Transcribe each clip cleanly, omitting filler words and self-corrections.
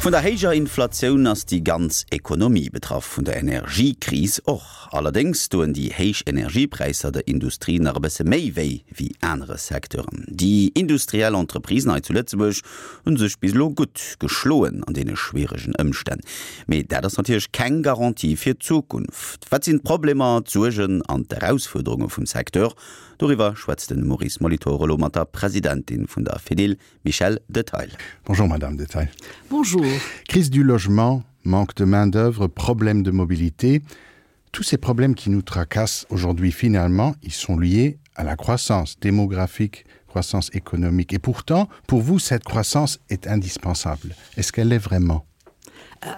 Vun der héijer Inflatioun ass déi ganz Ekonomie betraff, vun der Energiekris och. Allerdéngs doen déi héich Energiepräisser der Industrie nach e bësse méi wéi wéi anere Secteuren. Déi industriell Entreprisen hei zu Lëtzebuerg hu sech bis elo gutt geschloen an deene schwieregen Ëmstänn. Mee dat ass natierlech keng Garantie fir d'Zukunft. Wat sinn d'Problemer, d'Suergen an d'Erausfuerderunge vum Secteur? Doriwwer schwätzt de Maurice Molitor elo mat der Presidentin vun der Fedil, Michel Detail. Bonjour Madame Detail. Bonjour. Crise du logement, manque de main-d'œuvre, problème de mobilité, tous ces problèmes qui nous tracassent aujourd'hui finalement, ils sont liés à la croissance démographique, croissance économique. Et pourtant, pour vous, cette croissance est indispensable. Est-ce qu'elle l'est vraiment euh,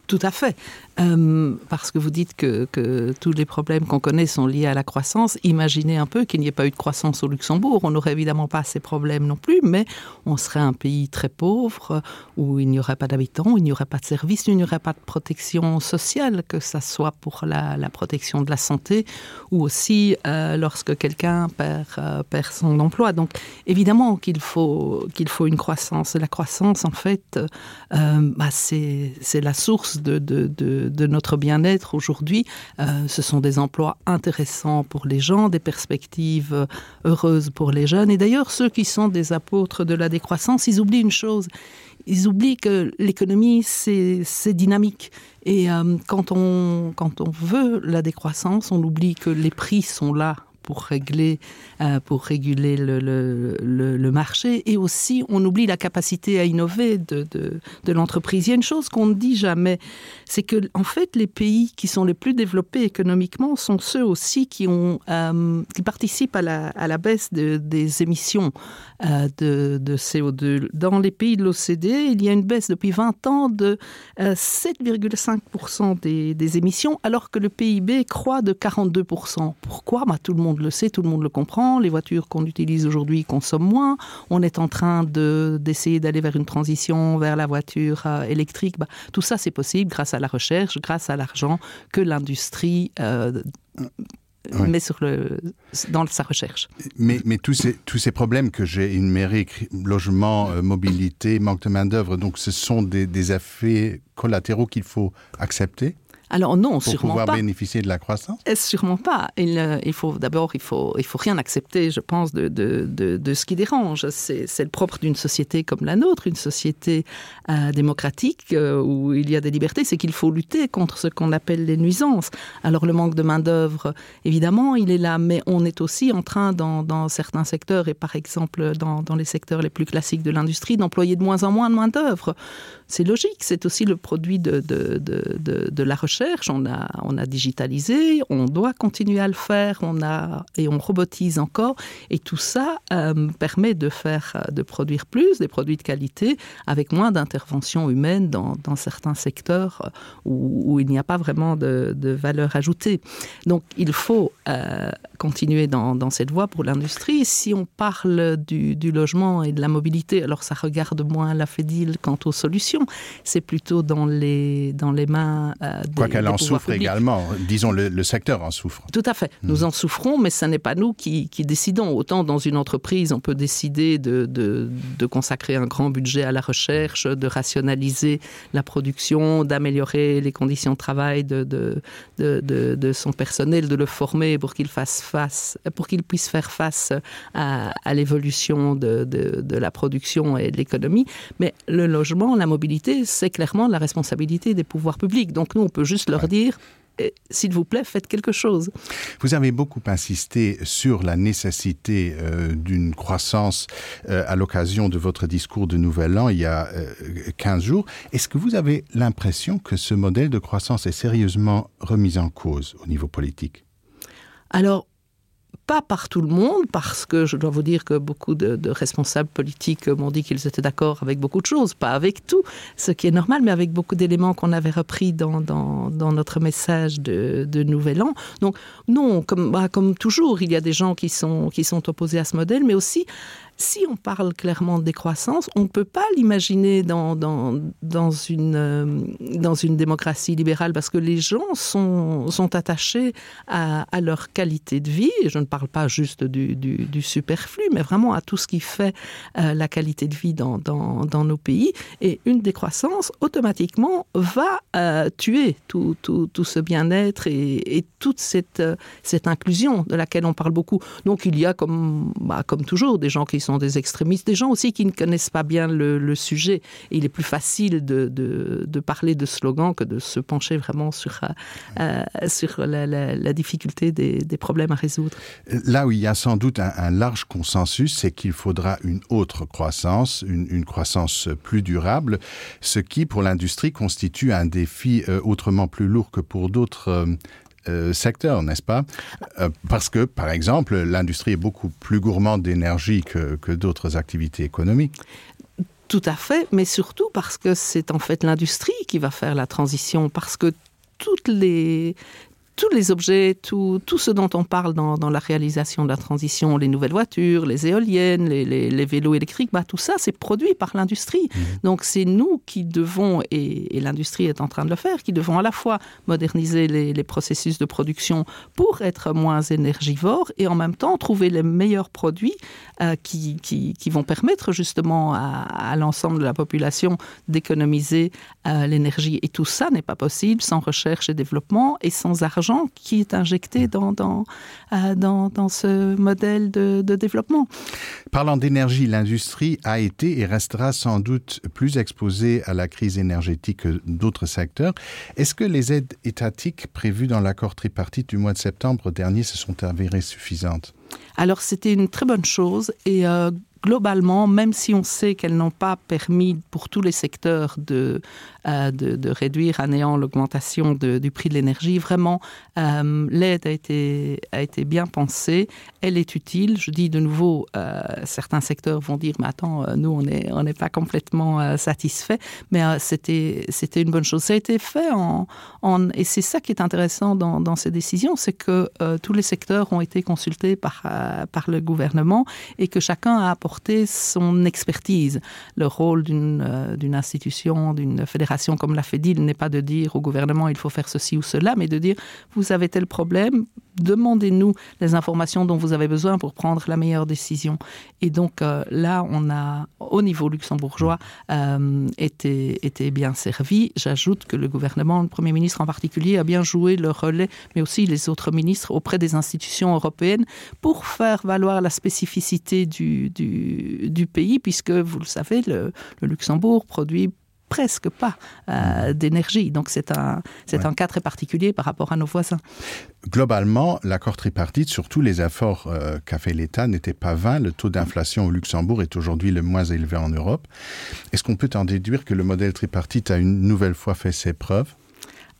Tout à fait. Euh, parce que vous dites que, que tous les problèmes qu'on connaît sont liés à la croissance. Imaginez un peu qu'il n'y ait pas eu de croissance au Luxembourg. On n'aurait évidemment pas ces problèmes non plus, mais on serait un pays très pauvre où il n'y aurait pas d'habitants, il n'y aurait pas de services, il n'y aurait pas de protection sociale, que ça soit pour la, la protection de la santé ou aussi euh, lorsque quelqu'un perd, euh, perd son emploi. Donc évidemment qu'il faut, qu'il faut une croissance. La croissance, en fait, euh, c'est la source de, de, de, de notre bien-être aujourd'hui. Euh, ce sont des emplois intéressants pour les gens, des perspectives heureuses pour les jeunes. Et d'ailleurs, ceux qui sont des apôtres de la décroissance, ils oublient une chose. Ils oublient que l'économie, c'est dynamique. Et euh, quand, on, quand on veut la décroissance, on oublie que les prix sont là pour régler euh, pour réguler le, le, le, le marché et aussi on oublie la capacité à innover de, de, de l'entreprise. Il y a une chose qu'on ne dit jamais, c'est que en fait les pays qui sont les plus développés économiquement sont ceux aussi qui ont euh, qui participent à la, à la baisse de, des émissions euh, de, de CO2. Dans les pays de l'OCDE, il y a une baisse depuis 20 ans de euh, 7,5% des, des émissions alors que le PIB croît de 42%. Pourquoi bah, tout le monde le sait, tout le monde le comprend, les voitures qu'on utilise aujourd'hui consomment moins, on est en train d'essayer de, d'aller vers une transition vers la voiture euh, électrique. Bah, tout ça c'est possible grâce à la recherche, grâce à l'argent que l'industrie euh, oui. met sur le, dans sa recherche. Mais, mais tous, ces, tous ces problèmes que j'ai énumérés, logement, euh, mobilité, manque de main-d'œuvre, donc ce sont des, des effets collatéraux qu'il faut accepter? Alors non, pour sûrement pouvoir pas. bénéficier de la croissance eh, Sûrement pas. Il, euh, il faut d'abord il faut, il faut rien accepter, je pense, de, de, de, de ce qui dérange. C'est le propre d'une société comme la nôtre, une société euh, démocratique euh, où il y a des libertés, c'est qu'il faut lutter contre ce qu'on appelle les nuisances. Alors le manque de main-d'œuvre, évidemment, il est là, mais on est aussi en train dans, dans certains secteurs et par exemple dans, dans les secteurs les plus classiques de l'industrie d'employer de moins en moins de main-d'œuvre. C'est logique, c'est aussi le produit de, de, de, de, de la recherche. On a, on a digitalisé, on doit continuer à le faire, on a, et on robotise encore. Et tout ça euh, permet de, faire, de produire plus, des produits de qualité, avec moins d'interventions humaines dans, dans certains secteurs où, où il n'y a pas vraiment de, de valeur ajoutée. Donc il faut euh, continuer dans, dans cette voie pour l'industrie. Si on parle du, du logement et de la mobilité, alors ça regarde moins la Fédil quant aux solutions, c'est plutôt dans les, dans les mains euh, des, Quoi qu'elle en souffre publics. également, disons le, le secteur en souffre. Tout à fait. Mmh. Nous en souffrons, mais ce n'est pas nous qui, qui décidons. Autant dans une entreprise, on peut décider de, de, de consacrer un grand budget à la recherche, de rationaliser la production, d'améliorer les conditions de travail de, de, de, de, de son personnel, de le former pour qu'il fasse face pour qu'il puisse faire face à, à l'évolution de, de, de la production et de l'économie. Mais le logement, la mobilité, c'est clairement la responsabilité des pouvoirs publics. Donc nous, on peut juste leur ouais. dire eh, s'il vous plaît, faites quelque chose. Vous avez beaucoup insisté sur la nécessité euh, d'une croissance euh, à l'occasion de votre discours de Nouvel An il y a euh, 15 jours. Est-ce que vous avez l'impression que ce modèle de croissance est sérieusement remis en cause au niveau politique Alors, pas par tout le monde, parce que je dois vous dire que beaucoup de, de responsables politiques m'ont dit qu'ils étaient d'accord avec beaucoup de choses, pas avec tout, ce qui est normal, mais avec beaucoup d'éléments qu'on avait repris dans, dans, dans notre message de, de Nouvel An. Donc non, comme, bah, comme toujours, il y a des gens qui sont, qui sont opposés à ce modèle, mais aussi. Si on parle clairement de décroissance, on ne peut pas l'imaginer dans, dans, dans, une, euh, dans une démocratie libérale parce que les gens sont, sont attachés à, à leur qualité de vie. Et je ne parle pas juste du, du, du superflu, mais vraiment à tout ce qui fait euh, la qualité de vie dans, dans, dans nos pays. Et une décroissance, automatiquement, va euh, tuer tout, tout, tout ce bien-être et, et toute cette, euh, cette inclusion de laquelle on parle beaucoup. Donc il y a, comme, bah, comme toujours, des gens qui sont des extrémistes, des gens aussi qui ne connaissent pas bien le, le sujet. Et il est plus facile de, de, de parler de slogans que de se pencher vraiment sur, euh, euh sur la, la, la difficulté des, des problèmes à résoudre. Là où il y a sans doute un, un large consensus, c'est qu'il faudra une autre croissance, une, une croissance plus durable, ce qui pour l'industrie constitue un défi euh, autrement plus lourd que pour d'autres euh, euh, secteurs, n'est-ce pas euh, Parce que, par exemple, l'industrie est beaucoup plus gourmande d'énergie que, que d'autres activités économiques. Tout à fait, mais surtout parce que c'est en fait l'industrie qui va faire la transition, parce que toutes les, tous les objets, tout, tout ce dont on parle dans, dans la réalisation de la transition, les nouvelles voitures, les éoliennes, les, les, les vélos électriques, bah, tout ça c'est produit par l'industrie. Mmh. Donc c'est nous qui devons et, et l'industrie est en train de le faire, qui devons à la fois moderniser les, les processus de production pour être moins énergivores et en même temps trouver les meilleurs produits euh, qui, qui, qui vont permettre justement à, à l'ensemble de la population d'économiser euh, l'énergie. Et tout ça n'est pas possible sans recherche et développement et sans argent qui est injecté dans, dans, euh, dans, dans ce modèle de, de développement. Parlant d'énergie, l'industrie a été et restera sans doute plus exposée à la crise énergétique que d'autres secteurs. Est-ce que les aides étatiques prévues dans l'accord tripartite du mois de septembre dernier se sont avérées suffisantes? Alors c'était une très bonne chose et euh, globalement, même si on sait qu'elles n'ont pas permis pour tous les secteurs de, euh, de, de réduire à néant l'augmentation du prix de l'énergie, vraiment euh, l'aide a été, a été bien pensée, elle est utile. Je dis de nouveau, euh, certains secteurs vont dire mais attends, euh, nous on n'est on pas complètement euh, satisfait, mais euh, c'était une bonne chose. Ça a été fait en, en, et c'est ça qui est intéressant dans, dans ces décisions, c'est que euh, tous les secteurs ont été consultés par, euh, par le gouvernement et que chacun a apporté son expertise. Le rôle d'une euh, institution, d'une fédération comme la FEDIL n'est pas de dire au gouvernement il faut faire ceci ou cela, mais de dire vous avez tel problème, demandez-nous les informations dont vous avez besoin pour prendre la meilleure décision. Et donc euh, là, on a au niveau luxembourgeois euh, été, été bien servi. J'ajoute que le gouvernement, le Premier ministre en particulier, a bien joué le relais, mais aussi les autres ministres auprès des institutions européennes pour faire valoir la spécificité du, du, du pays, puisque, vous le savez, le, le Luxembourg produit presque pas euh, d'énergie. Donc c'est un, c'est ouais. un cas très particulier par rapport à nos voisins. Globalement, l'accord tripartite, surtout les efforts euh, qu'a fait l'État, n'étaient pas vains. Le taux d'inflation au Luxembourg est aujourd'hui le moins élevé en Europe. Est-ce qu'on peut en déduire que le modèle tripartite a une nouvelle fois fait ses preuves?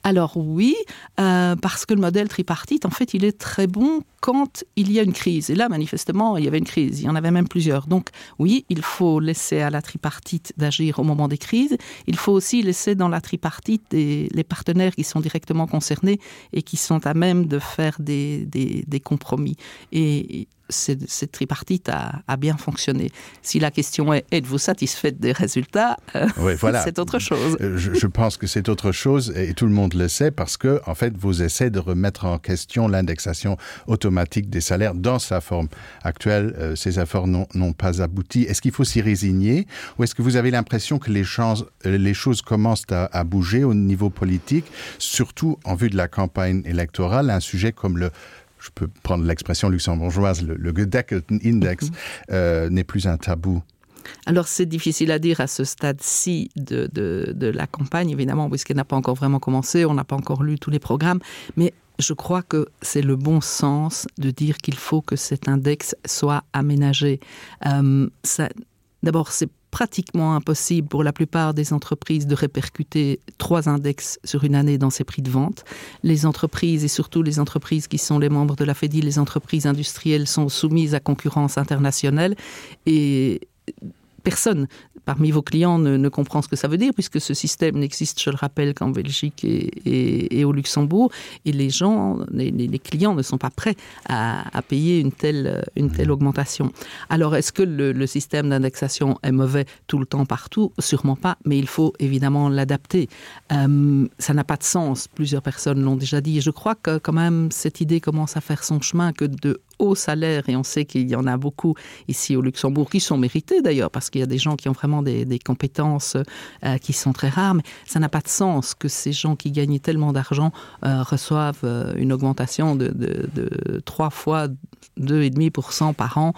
Alors oui, euh, parce que le modèle tripartite, en fait, il est très bon quand il y a une crise. Et là, manifestement, il y avait une crise, il y en avait même plusieurs. Donc oui, il faut laisser à la tripartite d'agir au moment des crises. Il faut aussi laisser dans la tripartite des, les partenaires qui sont directement concernés et qui sont à même de faire des, des, des compromis. Et cette, cette tripartite a, a bien fonctionné. Si la question est êtes-vous satisfaite des résultats, euh, oui, voilà. c'est autre chose. Euh, je, je pense que c'est autre chose et tout le monde le sait parce que en fait vos essais de remettre en question l'indexation automatique des salaires dans sa forme actuelle, euh, ces efforts n'ont pas abouti. Est-ce qu'il faut s'y résigner ou est-ce que vous avez l'impression que les, chances, euh, les choses commencent à, à bouger au niveau politique, surtout en vue de la campagne électorale, un sujet comme le je peux prendre l'expression luxembourgeoise, le, le Gedeckelten Index mm -hmm. euh, n'est plus un tabou. Alors c'est difficile à dire à ce stade-ci de, de, de la campagne, évidemment, puisqu'elle n'a pas encore vraiment commencé, on n'a pas encore lu tous les programmes, mais je crois que c'est le bon sens de dire qu'il faut que cet index soit aménagé. Euh, D'abord, c'est pratiquement impossible pour la plupart des entreprises de répercuter trois index sur une année dans ses prix de vente. Les entreprises et surtout les entreprises qui sont les membres de la FEDI, les entreprises industrielles sont soumises à concurrence internationale et personne. parmi vos clients ne, ne comprend ce que ça veut dire puisque ce système n'existe, je le rappelle, qu'en Belgique et, et, et au Luxembourg et les gens les, les clients ne sont pas prêts à, à payer une telle, une telle augmentation. Alors est-ce que le, le système d'indexation est mauvais tout le temps partout Sûrement pas, mais il faut évidemment l'adapter. Euh, ça n'a pas de sens, plusieurs personnes l'ont déjà dit. Je crois que quand même cette idée commence à faire son chemin que de hauts salaires et on sait qu'il y en a beaucoup ici au Luxembourg qui sont mérités d'ailleurs parce qu'il y a des gens qui ont vraiment des, des compétences euh, qui sont très rares mais ça n'a pas de sens que ces gens qui gagnent tellement d'argent euh, reçoivent euh, une augmentation de, de, de 3 fois 2,5% par an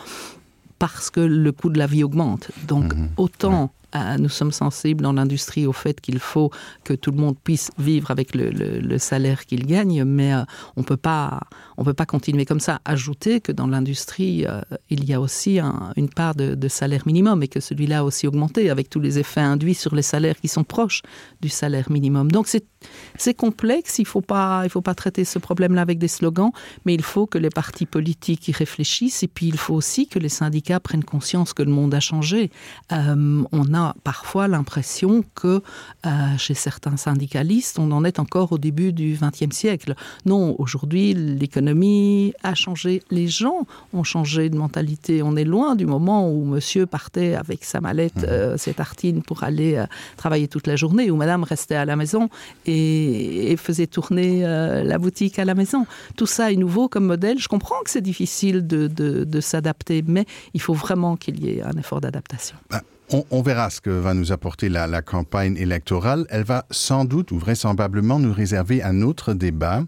parce que le coût de la vie augmente donc mmh, autant ouais euh, nous sommes sensibles dans l'industrie au fait qu'il faut que tout le monde puisse vivre avec le, le, le salaire qu'il gagne mais euh, on peut pas on peut pas continuer comme ça ajouter que dans l'industrie euh, il y a aussi un, une part de, de salaire minimum et que celui-là aussi augmenté avec tous les effets induits sur les salaires qui sont proches du salaire minimum donc c'est c'est complexe il faut pas il faut pas traiter ce problème là avec des slogans mais il faut que les partis politiques y réfléchissent et puis il faut aussi que les syndicats prennent conscience que le monde a changé euh, on a parfois l'impression que euh, chez certains syndicalistes on en est encore au début du XXe siècle non aujourd'hui l'économie a changé les gens ont changé de mentalité on est loin du moment où monsieur partait avec sa mallette mmh. euh, ses tartines pour aller euh, travailler toute la journée ou madame restait à la maison et, et faisait tourner euh, la boutique à la maison. Tout ça est nouveau comme modèle. Je comprends que c'est difficile de, de, de s'adapter, mais il faut vraiment qu'il y ait un effort d'adaptation. On, on verra ce que va nous apporter la, la campagne électorale. Elle va sans doute ou vraisemblablement nous réserver un autre débat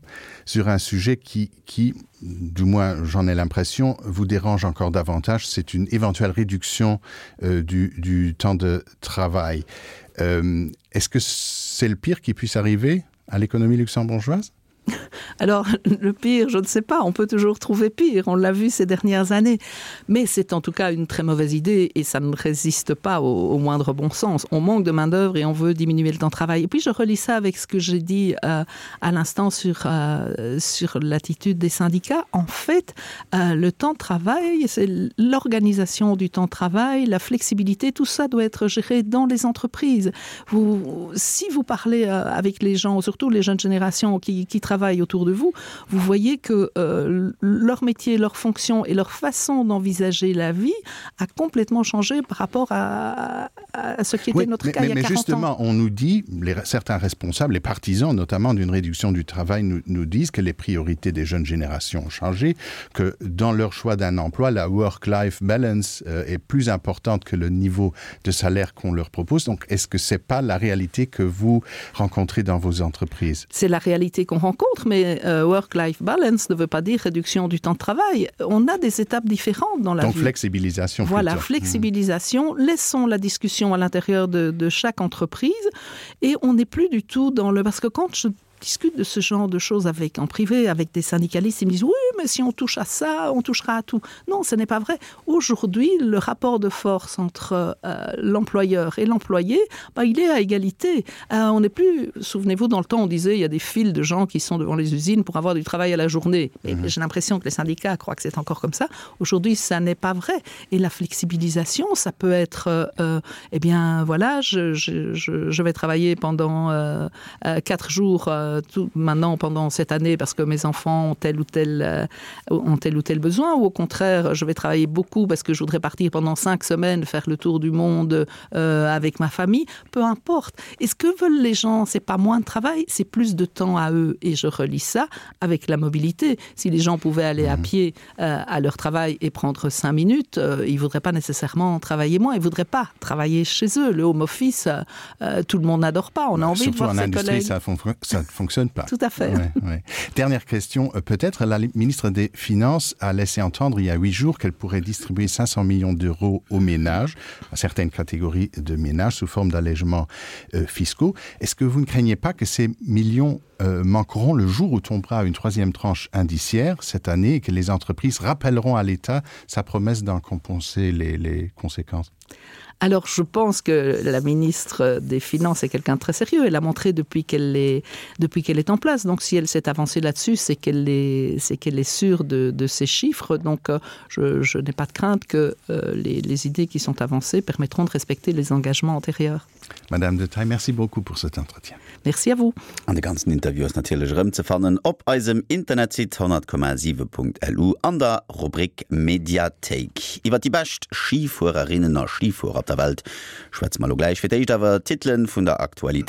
sur un sujet qui, qui du moins j'en ai l'impression, vous dérange encore davantage. C'est une éventuelle réduction euh, du, du temps de travail. Euh, Est-ce que c'est le pire qui puisse arriver à l'économie luxembourgeoise? Alors le pire, je ne sais pas, on peut toujours trouver pire, on l'a vu ces dernières années. Mais c'est en tout cas une très mauvaise idée et ça ne résiste pas au, au moindre bon sens. On manque de main-d'œuvre et on veut diminuer le temps de travail. Et puis je relis ça avec ce que j'ai dit euh, à l'instant sur, euh, sur l'attitude des syndicats. En fait, euh, le temps de travail, c'est l'organisation du temps de travail, la flexibilité, tout ça doit être géré dans les entreprises. Vous, si vous parlez euh, avec les gens, surtout les jeunes générations qui, qui travaillent autour de vous, vous voyez que euh, leur métier, leur fonction et leur façon d'envisager la vie a complètement changé par rapport à, à ce qui était oui, notre mais, cas mais, mais justement, ans. on nous dit, les, certains responsables, les partisans notamment d'une réduction du travail nous, nous disent que les priorités des jeunes générations ont changé, que dans leur choix d'un emploi, la work-life balance euh, est plus importante que le niveau de salaire qu'on leur propose. Donc est-ce que ce n'est pas la réalité que vous rencontrez dans vos entreprises? C'est la réalité qu'on rencontre, mais euh, work-life balance ne veut pas dire réduction du temps de travail. On a des étapes différentes dans la Donc vie. flexibilisation. Voilà, plutôt. flexibilisation. Mmh. Laissons la discussion à l'intérieur de, de chaque entreprise et on n'est plus du tout dans le parce que quand je discute de ce genre de choses avec en privé avec des syndicalistes ils me disent oui mais si on touche à ça on touchera à tout non ce n'est pas vrai aujourd'hui le rapport de force entre euh, l'employeur et l'employé bah, il est à égalité euh, on n'est plus souvenez-vous dans le temps on disait il y a des files de gens qui sont devant les usines pour avoir du travail à la journée mais mmh. j'ai l'impression que les syndicats croient que c'est encore comme ça aujourd'hui ça n'est pas vrai et la flexibilisation ça peut être euh, euh eh bien voilà je, je, je, je vais travailler pendant euh, euh, quatre jours euh, tout maintenant pendant cette année parce que mes enfants ont tel ou tel euh, ont tel ou tel besoin ou au contraire je vais travailler beaucoup parce que je voudrais partir pendant cinq semaines faire le tour du monde euh, avec ma famille peu importe et ce que veulent les gens c'est pas moins de travail c'est plus de temps à eux et je relis ça avec la mobilité si les gens pouvaient aller mmh. à pied euh, à leur travail et prendre cinq minutes euh, ils voudraient pas nécessairement travailler moins ils voudraient pas travailler chez eux le home office euh, euh tout le monde n'adore pas on a envie Surtout de voir en ses industrie collègues. ça, fon ça ne fonctionne pas tout à fait ouais, ouais. dernière question euh, peut-être la ministre des finances a laissé entendre il y a huit jours qu'elle pourrait distribuer 500 millions d'euros aux ménages à certaines catégories de ménages sous forme d'allègements euh, fiscaux est-ce que vous ne craignez pas que ces millions euh, manqueront le jour où tombera une troisième tranche indiciaire cette année et que les entreprises rappelleront à l'état sa promesse d'en compenser les, les conséquences? Alors je pense que la ministre des Finances est quelqu'un de très sérieux. Elle a montré depuis qu'elle est, depuis qu'elle est en place. Donc si elle s'est avancée là-dessus, c'est qu'elle est, c'est qu'elle est sûre de, de ces chiffres. Donc euh, je, je n'ai pas de crainte que euh, les, les idées qui sont avancées permettront de respecter les engagements antérieurs. Madame de Taille, merci beaucoup pour cet entretien. Merci à vous. An de ganzen Interview ass natierlech erëmzefannen op eisem Internetsite 100,7.lu an der Rubrik Mediathéik. Iwwer déi bescht Schifuererinnen a Schifuerer op der Welt schwätze mer elo gläich. Fir d'éischt awer d'Titelen vun der Aktualitéit.